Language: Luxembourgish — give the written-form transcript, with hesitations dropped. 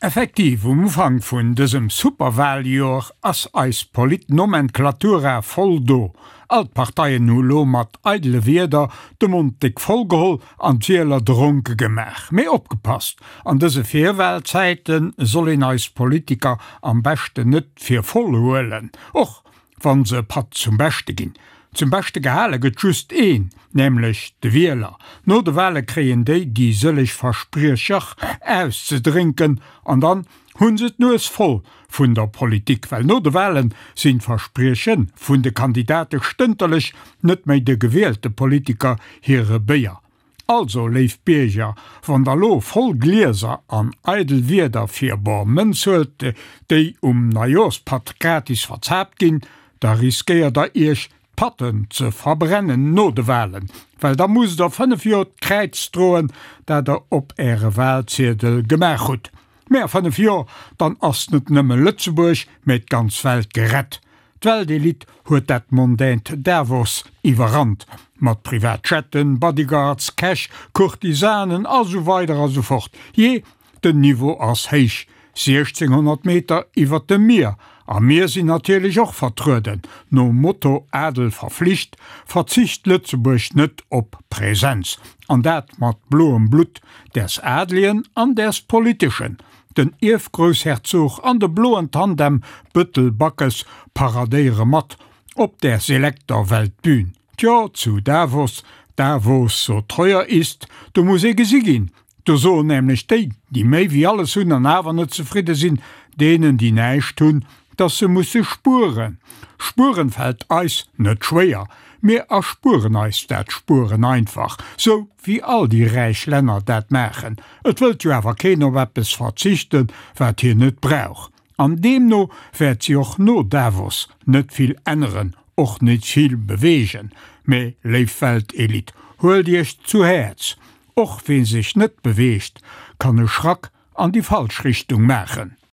Effektiv, um Ufank vun dësem Superwahljoer ass eis Polit-Nomenklatura voll do. All d'Parteien hu lo mat eidele Wierder de Mond déck voll geholl an d'Wieler dronke gemaach. Mee opgepasst, an dëse Virwahlzäite soll een eis Politiker am beschten net fir voll huelen, och wann se e Patt zum Beschte ginn. Zum Beschte gehale gëtt just een, nämlech de Wieler. No de Wale kréien déi déi sëlleg Verspriecher auszedrénken an dann hunn se d'Nues voll vun der Politik, well no de Walen sinn d'Versprieche vun de Kandidate stënterlech net méi de gewielte Politiker hire Béier. Also, léif Bierger, wann der lo voll Glieser an eidel Wierder fir bor Mënz huelt, déi um Neijoorspatt gratis verzaapt ginn, da riskéiert der iech d'Patten ze verbrennen no de Walen, well da musst der 5 Joer d'Kräiz droen, dat der op äre Walziedel gemaach hutt. Mä a 5 Joer, dann ass net nëmme Lëtzebuerg, mä d'ganz Welt gerett. D'Weltelite huet dat mondänt Davos iwwerrannt, mat Privatjetten, Bodyguards, Cash, Courtisanen a sou weider a sou fort. Jee, den Niveau ass héich, 1600 Meter iwwert dem Mier, a mir sinn natierlech och vertrueden. Nom Motto Adel verflicht, verzicht Lëtzebuerg net op Präsenz, an dat mat bloem Blutt, däers Adligen an däers Politeschen. Den Ierfgroussherzog an de bloen Tandem Bëttel-Backes paradéiere mat op der selekter Weltbühn. Tjo, zu Davos, da wo's so teuer ist, do muss ee gesi ginn. Do soen nämlech déi, déi méi wéi alles hunn an awer net zefridde sinn, deenen, déi näischt hunn, dass se musse spueren. Spueren fält eis net schwéier. Mir erspueren eis dat Spueren einfach, sou wéi all déi räich Länner dat maachen. Et wëllt jo awer keen op eppes verzichten, wat hien net brauch. An deemno wäert si och no Davos net vill änneren, och net vill beweegen. Mä, léif Weltelite, huelt iech zu Häerz, och wee sech net beweegt, kann e Schrack an déi falsch Richtung maachen.